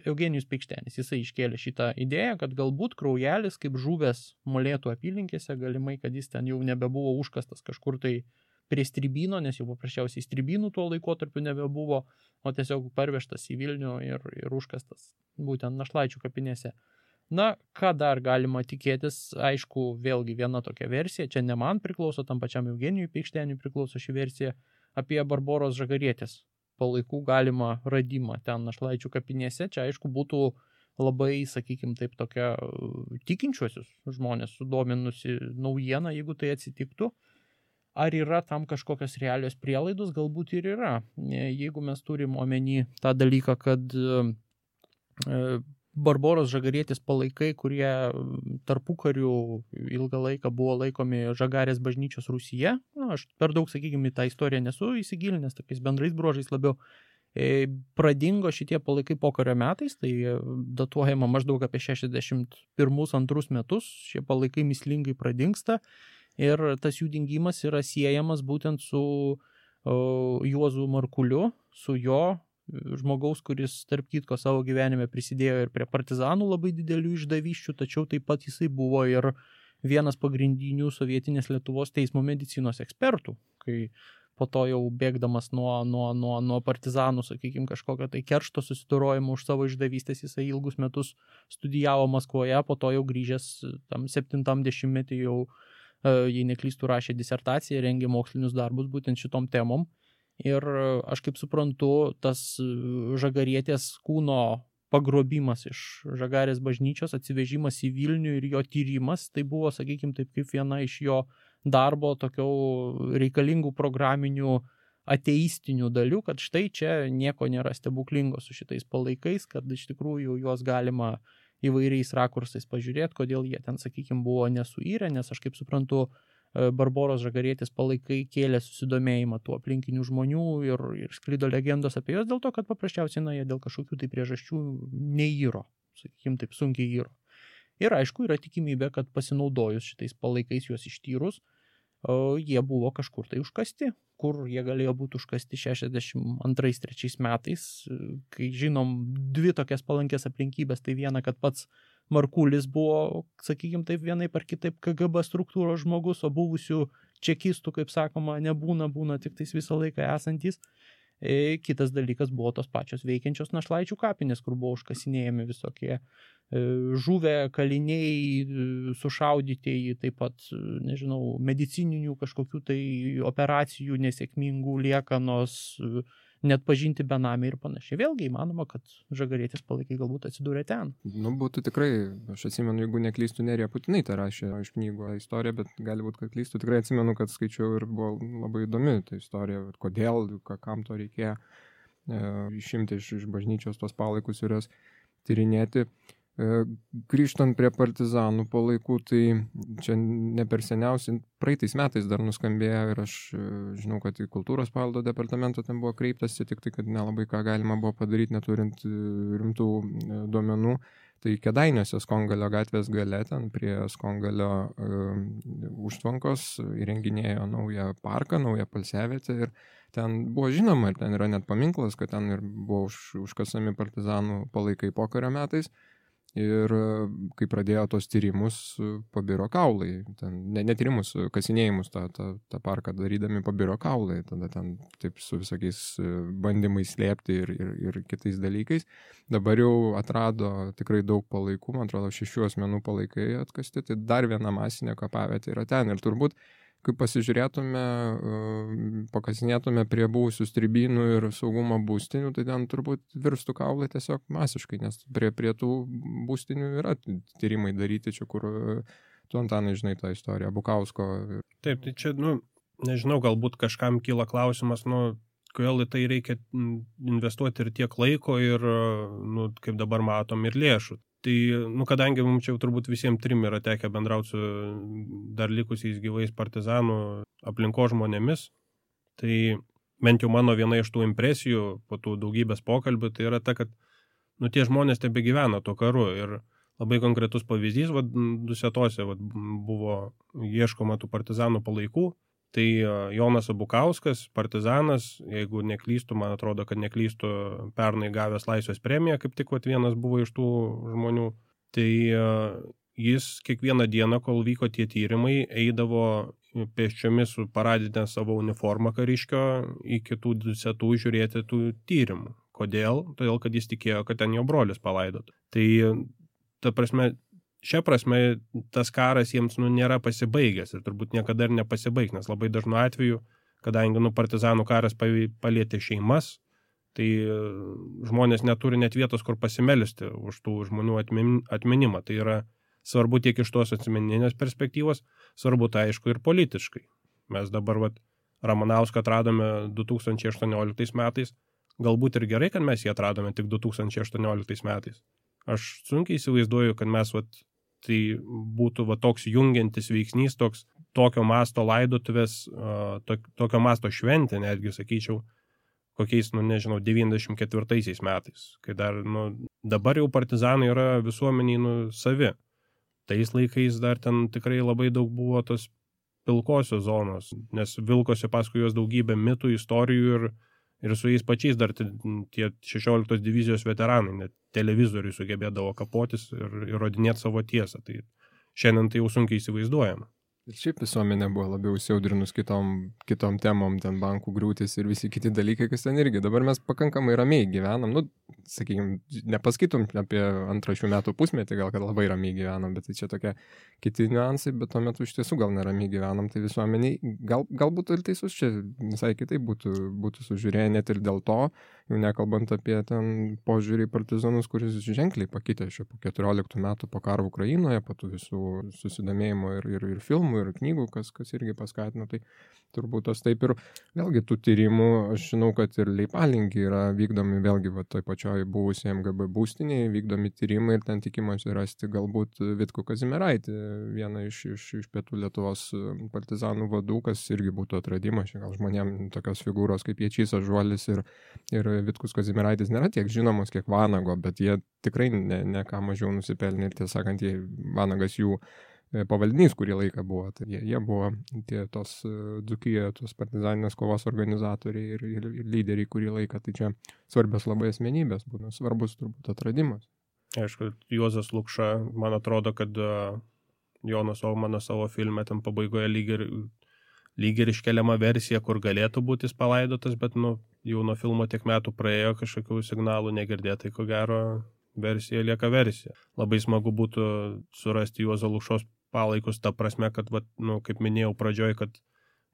Eugenijus Peikštenis. Jisai iškėlė šitą idėją, kad galbūt Kraujelis, kaip žuvęs Molėtų apylinkėse, galimai, kad jis ten jau nebebuvo užkastas kažkur tai prie Stribino, nes jau paprasčiausiai Stribinų tuo laikotarpiu nebebuvo, o tiesiog parvežtas į Vilnių ir užkastas būtent Našlaičių kapinėse. Na, ką dar galima tikėtis, aišku, vėlgi viena tokia versija, čia ne man priklauso, tam pačiam Eugenijui Peikšteniui priklauso ši versija, apie Barboros Žagarietės palaikų galimą radimą ten Našlaičių kapinėse. Čia, aišku, būtų labai, sakykime, taip tokia tikinčiuosius žmonės sudominusi naujiena, jeigu tai atsitiktų. Ar yra tam kažkokios realios prielaidos? Galbūt ir yra. Jeigu mes turim omeny tą dalyką, kad Barboros Žagarietės palaikai, kurie tarpukariu ilgą laiką buvo laikomi Žagarės bažnyčios Rūsyje. Aš per daug, sakykime, tą istoriją nesu įsigilinęs, tokiais bendrais bruožais labiau. Pradingo šitie palaikai pokario metais, tai datuojama maždaug apie 61-2 metus. Šie palaikai mįslingai pradingsta ir tas jų dingimas yra siejamas būtent su Juozu Markuliu, su jo žmogaus, kuris tarp kitko savo gyvenime prisidėjo ir prie partizanų labai didelių išdavyščių, tačiau taip pat jisai buvo ir vienas pagrindinių sovietinės Lietuvos teismo medicinos ekspertų, kai po to jau bėgdamas nuo partizanų, sakykime, kažkokio tai keršto susidorojimo už savo išdavystės, jisai ilgus metus studijavo Maskvoje, po to jau grįžęs tam 70-metį jau, jei neklystų, rašė disertaciją, rengė mokslinius darbus būtent šitom temom. Ir aš kaip suprantu, tas Žagarietės kūno pagrobimas iš Žagarės bažnyčios, atsivežimas į Vilnių ir jo tyrimas, tai buvo, sakykime, taip kaip viena iš jo darbo tokių reikalingų programinių ateistinių dalių, kad štai čia nieko nėra stebuklingo su šitais palaikais, kad iš tikrųjų juos galima įvairiais rakursais pažiūrėti, kodėl jie ten, sakykime, buvo nesuirę, nes aš kaip suprantu, Barboros Žagarietės palaikai kėlė susidomėjimą tų aplinkinių žmonių ir sklido legendos apie juos dėl to, kad paprasčiausiai jie dėl kažkokių tai priežasčių neįro, sakykime taip, sunkiai įro. Ir aišku, yra tikimybė, kad pasinaudojus šitais palaikais juos ištyrus, jie buvo kažkur tai užkasti, kur jie galėjo būti užkasti 62-63 metais, kai žinom dvi tokias palankės aplinkybės, tai viena, kad pats Markulis buvo, sakykime taip, vienaip ar kitaip KGB struktūros žmogus, o buvusių čekistų, kaip sakoma, būna tik tais visą laiką esantys. Kitas dalykas buvo tos pačios veikiančios našlaičių kapinės, kur buvo užkasinėjami visokie žuvę kaliniai, sušaudytieji, taip pat, nežinau, medicininių kažkokių tai operacijų nesėkmingų liekanos, net pažinti benamiai ir panašiai. Vėlgi įmanoma, kad Žagarietis palaikai galbūt atsidūrė ten. Nu, būtų tikrai, aš atsimenu, jeigu neklystu, Nerija Putinaitė rašė iš knygų istoriją, bet gali būti, kad klystu. Tikrai atsimenu, kad skaičiau ir buvo labai įdomi ta istorija, kodėl, kam to reikėjo išimti iš bažnyčios tos palaikus ir jas tyrinėti. Grįžtant prie partizanų palaikų, tai čia ne per seniausiai, praeitais metais dar nuskambėjo ir aš žinau, kad į kultūros paveldo departamento ten buvo kreiptasi, tik tai, kad nelabai ką galima buvo padaryti, neturint rimtų duomenų. Tai Kėdainiuose Skongalio gatvės gale, ten prie Skongalio užtvankos įrenginėjo naują parką, naują poilsiavietę ir ten buvo žinoma, ir ten yra net paminklas, kad ten ir buvo užkasami partizanų palaikai pokario metais. Ir kai pradėjo tos tyrimus, pabiro kaulai. Ne tyrimus, kasinėjimus tą parką darydami pabiro kaulai. Tada ten taip su visokiais bandymais slėpti ir kitais dalykais. Dabar jau atrado tikrai daug palaikų, man atrodo 6 asmenų palaikai atkasti. Tai dar viena masinė kapavietė yra ten. Ir turbūt, kai pasižiūrėtume, pakasinėtume prie buvusių stribynų ir saugumo būstinių, tai ten turbūt virstų kaulai tiesiog masiškai, nes prie tų būstinių yra tyrimai daryti, čia kur tu, Antanai, žinai tą istoriją, Bukausko. Taip, tai čia, nežinau, galbūt kažkam kyla klausimas, kodėl į tai reikia investuoti ir tiek laiko ir, kaip dabar matom, ir lėšų. Tai, kadangi mums čia turbūt visiems 3 yra tekę bendrauti su dar likusiais gyvais partizanų aplinkos žmonėmis, tai bent jau mano viena iš tų impresijų po tų daugybės pokalbių, tai yra ta, kad tie žmonės tebegyvena tuo karu ir labai konkretus pavyzdys, Dusetose buvo ieškoma tų partizanų palaikų, tai Jonas Abukauskas, partizanas, jeigu neklystu, man atrodo, kad neklystu, pernai gavęs Laisvės premiją, kaip tik vienas buvo iš tų žmonių, tai jis kiekvieną dieną, kol vyko tie tyrimai, eidavo pėsčiomis su paradinę savo uniformą kariškio į kitų Dusetų žiūrėti tų tyrimų. Kodėl? Todėl, kad jis tikėjo, kad ten jo brolis palaidotų. Tai, ta prasme, šia prasme, tas karas jiems nėra pasibaigęs ir turbūt niekada ir nepasibaigs, nes labai dažnu atveju, kadangi partizanų karas palietė šeimas, tai žmonės neturi net vietos, kur pasimelisti už tų žmonių atminimą. Tai yra svarbu tiek iš tos asmeninės perspektyvos, svarbu tai aišku ir politiškai. Mes dabar Ramanauską atradome 2018 metais, galbūt ir gerai, kad mes jį atradome tik 2018 metais. Aš sunkiai įsivaizduoju, kad mes tai būtų toks jungiantis veiksnys, tokio masto laidotuvės, tokio masto šventė, netgi sakyčiau, kokiais, 94 metais, kai dar, dabar jau partizanai yra visuomeniai savi. Tais laikais dar ten tikrai labai daug buvo tos pilkosios zonos, nes vilkosi paskui juos daugybę mitų, istorijų ir su jais pačiais dar tie 16 divizijos veteranai, net televizoriui sugebėdavo kapotis ir įrodinėti savo tiesą. Tai šiandien tai jau sunkiai įsivaizduojama. Ir šiaip visuomenė buvo labiau įsiaudrinus kitom temom, ten bankų griūtis ir visi kiti dalykai, kas ten irgi. Dabar mes pakankamai ramiai gyvenam, sakykime, nepaskaitom apie 2 šių metų pusmetį, gal kad labai ramiai gyvenam, bet tai čia tokie kiti niuansai, bet tuo metu iš tiesų gal neramiai gyvenam, tai visuomeniai galbūt ir teisus čia visai kitaip būtų sužiūrėję, net ir dėl to, jau nekalbant apie ten požiūrį į partizanus, kuris ženkliai pakitė šio po 14 metų po karo Ukrainoje, po tų visų susidomėjimo ir filmų, ir knygų, kas irgi paskatino, tai turbūt tos taip ir vėlgi tų tyrimų, aš žinau, kad ir Leipalingi yra vykdomi vėlgi toj pačioj buvusiai MGB būstinėje, vykdomi tyrimai ir ten tikimasi rasti galbūt Vitkų Kazimieraitį, vieną iš pietų Lietuvos partizanų vadų, kas irgi būtų atradimas, gal žmonėm tokios figūros kaip Ječys Ažuolis ir Vitkus Kazimieraitis nėra tiek žinomos, kiek Vanago, bet jie tikrai ne ką mažiau nusipelnė ir tiesą sakant, Vanagas jų pavaldinys kurį laiką buvo, tai jie buvo tos Dzūkijoje, tos partizaninės kovos organizatoriai ir lyderiai kurį laiką, tai čia svarbios labai asmenybės, būna svarbus turbūt atradimas. Aišku, Juozas Lukša, man atrodo, kad Jonas Ohmanas savo filme ten pabaigoje lyg ir iškeliama versija, kur galėtų būti jis palaidotas, bet jau nuo filmo tiek metų praėjo, kažkokių signalų negirdėtai, ko gero versija lieka versija. Labai smagu būtų surasti Juozo Lukšos palaikus, ta prasme, kad, kaip minėjau pradžioj, kad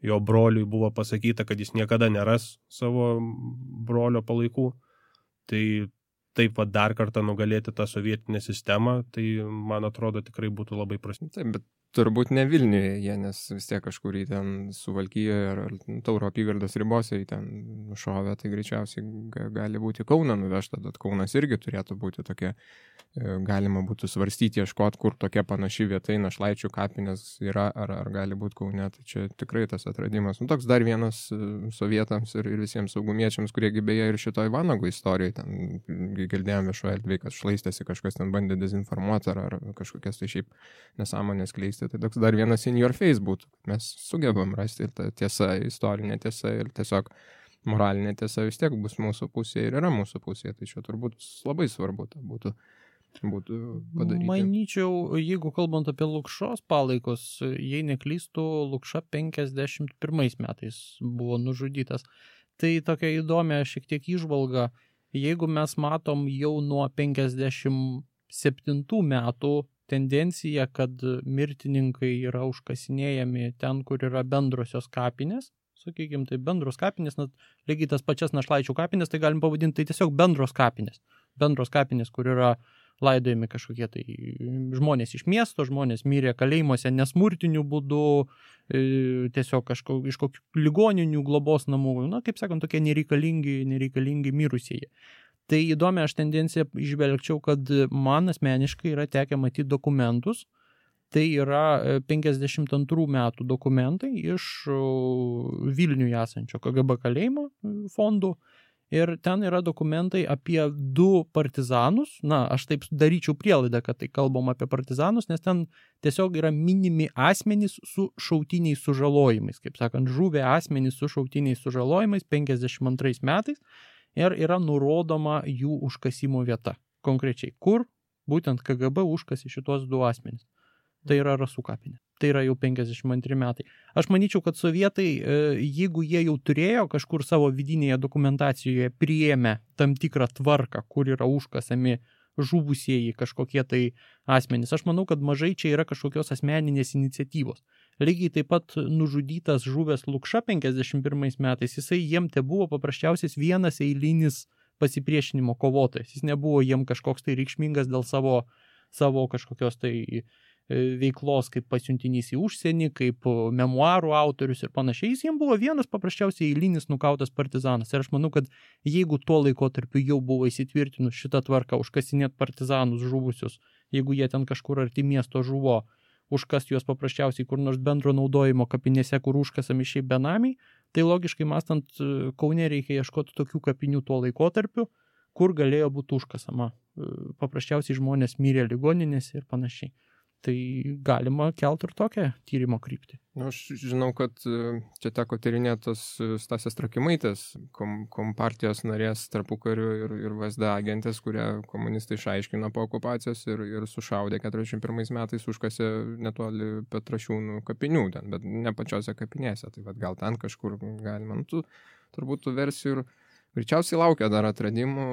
jo broliui buvo pasakyta, kad jis niekada neras savo brolio palaikų. Tai taip dar kartą nugalėti tą sovietinę sistemą, tai man atrodo tikrai būtų labai prasminga. Taip, bet turbūt ne Vilniuje jie, nes vis tiek kažkur į ten Suvalkijoje ar Tauro apygardos ribose į ten nušovė, tai greičiausiai gali būti Kauną nuvežta, bet Kaunas irgi turėtų būti tokia, galima būtų svarstyti, ieškoti, kur tokia panaši vieta, Našlaičių kapinės yra, ar gali būti Kaune, tai čia tikrai tas atradimas. Toks dar vienas sovietams ir visiems saugumiečiams, kurie beje ir šitoj Vanago istorijoje, ten girdėjome viešoje erdvėje, kad šlaistėsi kažkas ten bandė dezinformuoti ar kažkokias tai šiaip nesąmonės kleisti. Tai toks dar vienas in your face būtų. Mes sugebam rasti ir ta tiesa, istorinė tiesa ir tiesiog moralinė tiesa vis tiek bus mūsų pusėje ir yra mūsų pusėje. Tai čia turbūt labai svarbu būtų padaryti. Manyčiau, jeigu kalbant apie Lukšos palaikus, jei neklystų, Lukša 51 metais buvo nužudytas. Tai tokia įdomia šiek tiek įžvalga. Jeigu mes matom jau nuo 57 metų tendencija, kad mirtininkai yra užkasinėjami ten, kur yra bendrosios kapinės, sakykime, tai bendros kapinės, lygiai tas pačias Našlaičių kapinės, tai galim pavadinti tai tiesiog bendros kapinės, kur yra laidojami kažkokie tai žmonės iš miesto, žmonės mirė kalėjimuose nesmurtiniu būdu, tiesiog iš kokių ligoninių, globos namų, kaip sakant, tokie nereikalingi mirusieji. Tai įdomi aš tendenciją išvelgčiau, kad man asmeniškai yra tekę matyti dokumentus. Tai yra 52 metų dokumentai iš Vilniuje esančio KGB kalėjimo fondų. Ir ten yra dokumentai apie 2 partizanus. Aš taip daryčiau prielaidą, kad tai kalbam apie partizanus, nes ten tiesiog yra minimi asmenys su šautiniais sužalojimais. Kaip sakant, žuvę asmenys su šautiniais sužalojimais 52 metais. Ir yra nurodoma jų užkasimo vieta. Konkrečiai, kur būtent KGB užkasi šitos 2 asmenys. Tai yra Rasų kapinė. Tai yra jau 52 metai. Aš manyčiau, kad sovietai, jeigu jie jau turėjo kažkur savo vidinėje dokumentacijoje priėmę tam tikrą tvarką, kur yra užkasami žuvusieji kažkokie tai asmenys, aš manau, kad mažai čia yra kažkokios asmeninės iniciatyvos. Lygiai taip pat nužudytas žuvęs Lukša 51 metais, jisai jiem te buvo paprasčiausias vienas eilinis pasipriešinimo kovotojas. Jis nebuvo jiem kažkoks tai reikšmingas dėl savo kažkokios tai veiklos kaip pasiuntinys į užsienį, kaip memuarų autorius ir panašiai. Jis jiem buvo vienas paprasčiausiai eilinis nukautas partizanas. Ir aš manau, kad jeigu tuo laikotarpiu jau buvo įsitvirtinus šitą tvarką užkasinėti partizanus žuvusius, jeigu jie ten kažkur arti miesto žuvo, užkasti juos paprasčiausiai kur nors bendro naudojimo kapinėse, kur užkasami šiaip benamiai, tai logiškai mąstant, Kaune reikia ieškoti tokių kapinių tuo laikotarpiu, kur galėjo būti užkasama. Paprasčiausiai žmonės mirė ligoninėse ir panašiai. Tai galima kelti ir tokią tyrimo kryptį. Aš žinau, kad čia teko tyrinėtos Stasės Trakimaitės, kompartijos narės tarpukariu ir VSD agentės, kurie komunistai išaiškino po okupacijos ir sušaudė 41 metais, užkasė netoli Petrašiūnų kapinių ten, bet ne pačiose kapinėse. Tai gal ten kažkur galima, turbūt tų versijų ir greičiausiai laukia dar atradimų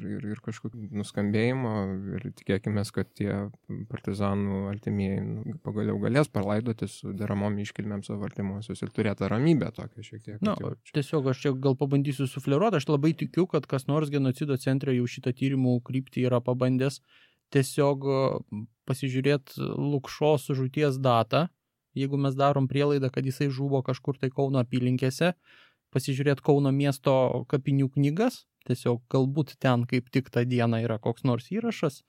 ir kažkokių nuskambėjimo ir tikėkime, kad tie partizanų artimieji pagaliau galės palaidoti su deramom iškilmėm savo artimuosius ir turėti ramybę tokią šiek tiek. Tiesiog aš čia gal pabandysiu sufleruoti, aš labai tikiu, kad kas nors genocido centre jau šitą tyrimų kryptį yra pabandęs tiesiog pasižiūrėti Lukšos žūties datą, jeigu mes darom prielaidą, kad jisai žuvo kažkur tai Kauno apylinkėse, pasižiūrėti Kauno miesto kapinių knygas, tiesiog galbūt ten kaip tik tą dieną yra koks nors įrašas,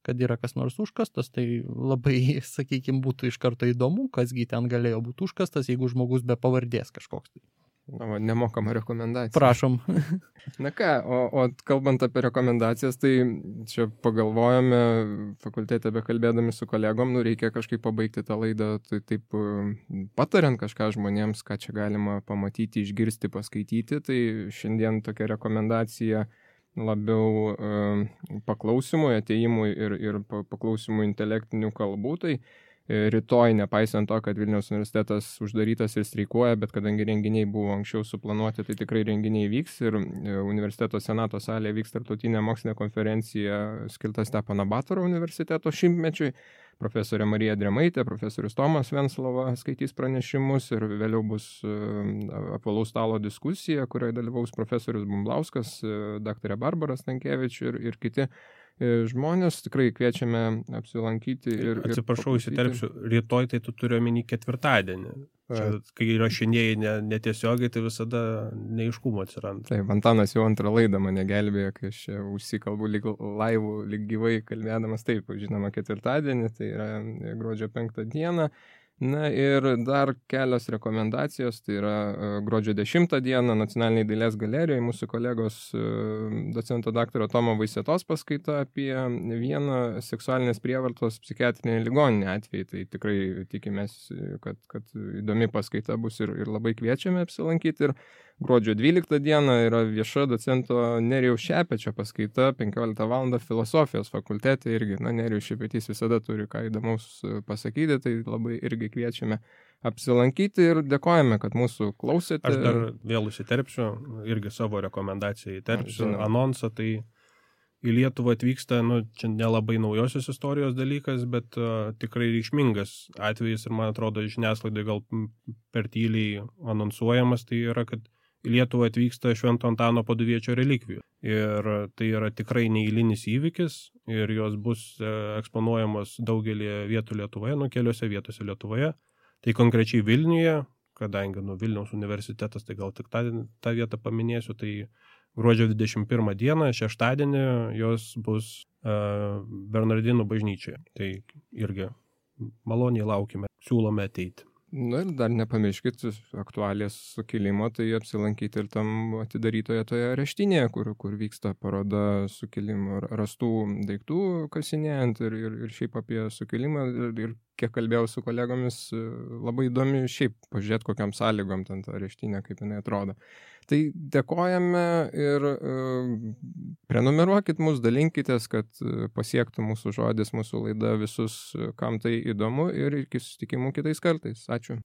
kad yra kas nors užkastas, tai labai, sakykime, būtų iš karto įdomu, kasgi ten galėjo būti užkastas, jeigu žmogus be pavardės kažkoks. Nemokama rekomendacija. Prašom. Na ką, o kalbant apie rekomendacijas, tai čia pagalvojame fakultete bekalbėdami su kolegom, reikia kažkaip pabaigti tą laidą, tai taip patariant kažką žmonėms, ką čia galima pamatyti, išgirsti, paskaityti, tai šiandien tokia rekomendacija labiau paklausimui, atėjimui ir paklausimui intelektinių kalbų. Tai rytoj, nepaisant to, kad Vilniaus universitetas uždarytas ir streikuoja, bet kadangi renginiai buvo anksčiau suplanuoti, tai tikrai renginiai vyks ir universiteto senato salėje vyks tarptautinė mokslinė konferencija skirta Stepono Batoro universiteto 100-mečiui. Profesorė Marija Dremaitė, profesorius Tomas Venslova skaitys pranešimus ir vėliau bus apvalaus stalo diskusija, kurioje dalyvaus profesorius Bumblauskas, daktarė Barbara Stankievič ir kiti žmonės. Tikrai kviečiame apsilankyti. Atsiprašau, įsiterpsiu, rytoj tai tu turi omeny ketvirtadienį. Čia, kai įrašinėjai netiesiogiai, tai visada neiškumo atsiranda. Taip, Antanas jau antrą laidą mane gelbėjo, kai aš čia užsikalbu lyg laivų, lyg gyvai kalbėdamas. Taip, žinoma, ketvirtadienį, tai yra gruodžio 5 dieną. Na ir dar kelios rekomendacijos, tai yra gruodžio 10 dieną Nacionaliniai dailės galerijoje mūsų kolegos docento daktaro Tomo Vaisietos paskaita apie vieną seksualinės prievartos psichiatrinę ligoninę atvejį. Tai tikrai tikimės, kad įdomi paskaita bus ir labai kviečiame apsilankyti. Ir gruodžio 12 dieną yra vieša docento Nerijaus Šepečio paskaita 15 val. Filosofijos fakultete irgi. Nerijus Šepetys visada turi ką įdomaus pasakyti, tai labai irgi kviečiame apsilankyti ir dėkojame, kad mūsų klausėte. Aš dar vėl įsiterpsiu, irgi savo rekomendaciją įterpsiu, anonsą, tai į Lietuvą atvyksta, čia nelabai naujosios istorijos dalykas, bet tikrai reikšmingas atvejis ir man atrodo žiniasklaidai gal per tyliai anonsuojamas, tai yra, kad į Lietuvą atvyksta Švento Antano Paduviečio relikvijų. Ir tai yra tikrai neeilinis įvykis ir jos bus eksponuojamos daugelį vietų Lietuvoje, keliose vietose Lietuvoje. Tai konkrečiai Vilniuje, kadangi Vilniaus universitetas, tai gal tik tą vietą paminėsiu, tai gruodžio 21 dieną, šeštadienį, jos bus Bernardinų bažnyčioje. Tai irgi maloniai laukime, siūlome ateiti. Ir dar nepamirškit aktualijas sukilimo, tai apsilankyti ir tam atidarytoje toje areštinėje, kur vyksta paroda sukilimo rastų daiktų kasinėjant ir šiaip apie sukilimą. Ir kiek kalbėjau su kolegomis, labai įdomi šiaip pažiūrėti, kokiam sąlygom ten ta areštinė, kaip jinai atrodo. Tai dėkojame ir prenumeruokit mus, dalinkitės, kad pasiektų mūsų žodis, mūsų laida visus, kam tai įdomu, ir iki susitikimų kitais kartais. Ačiū.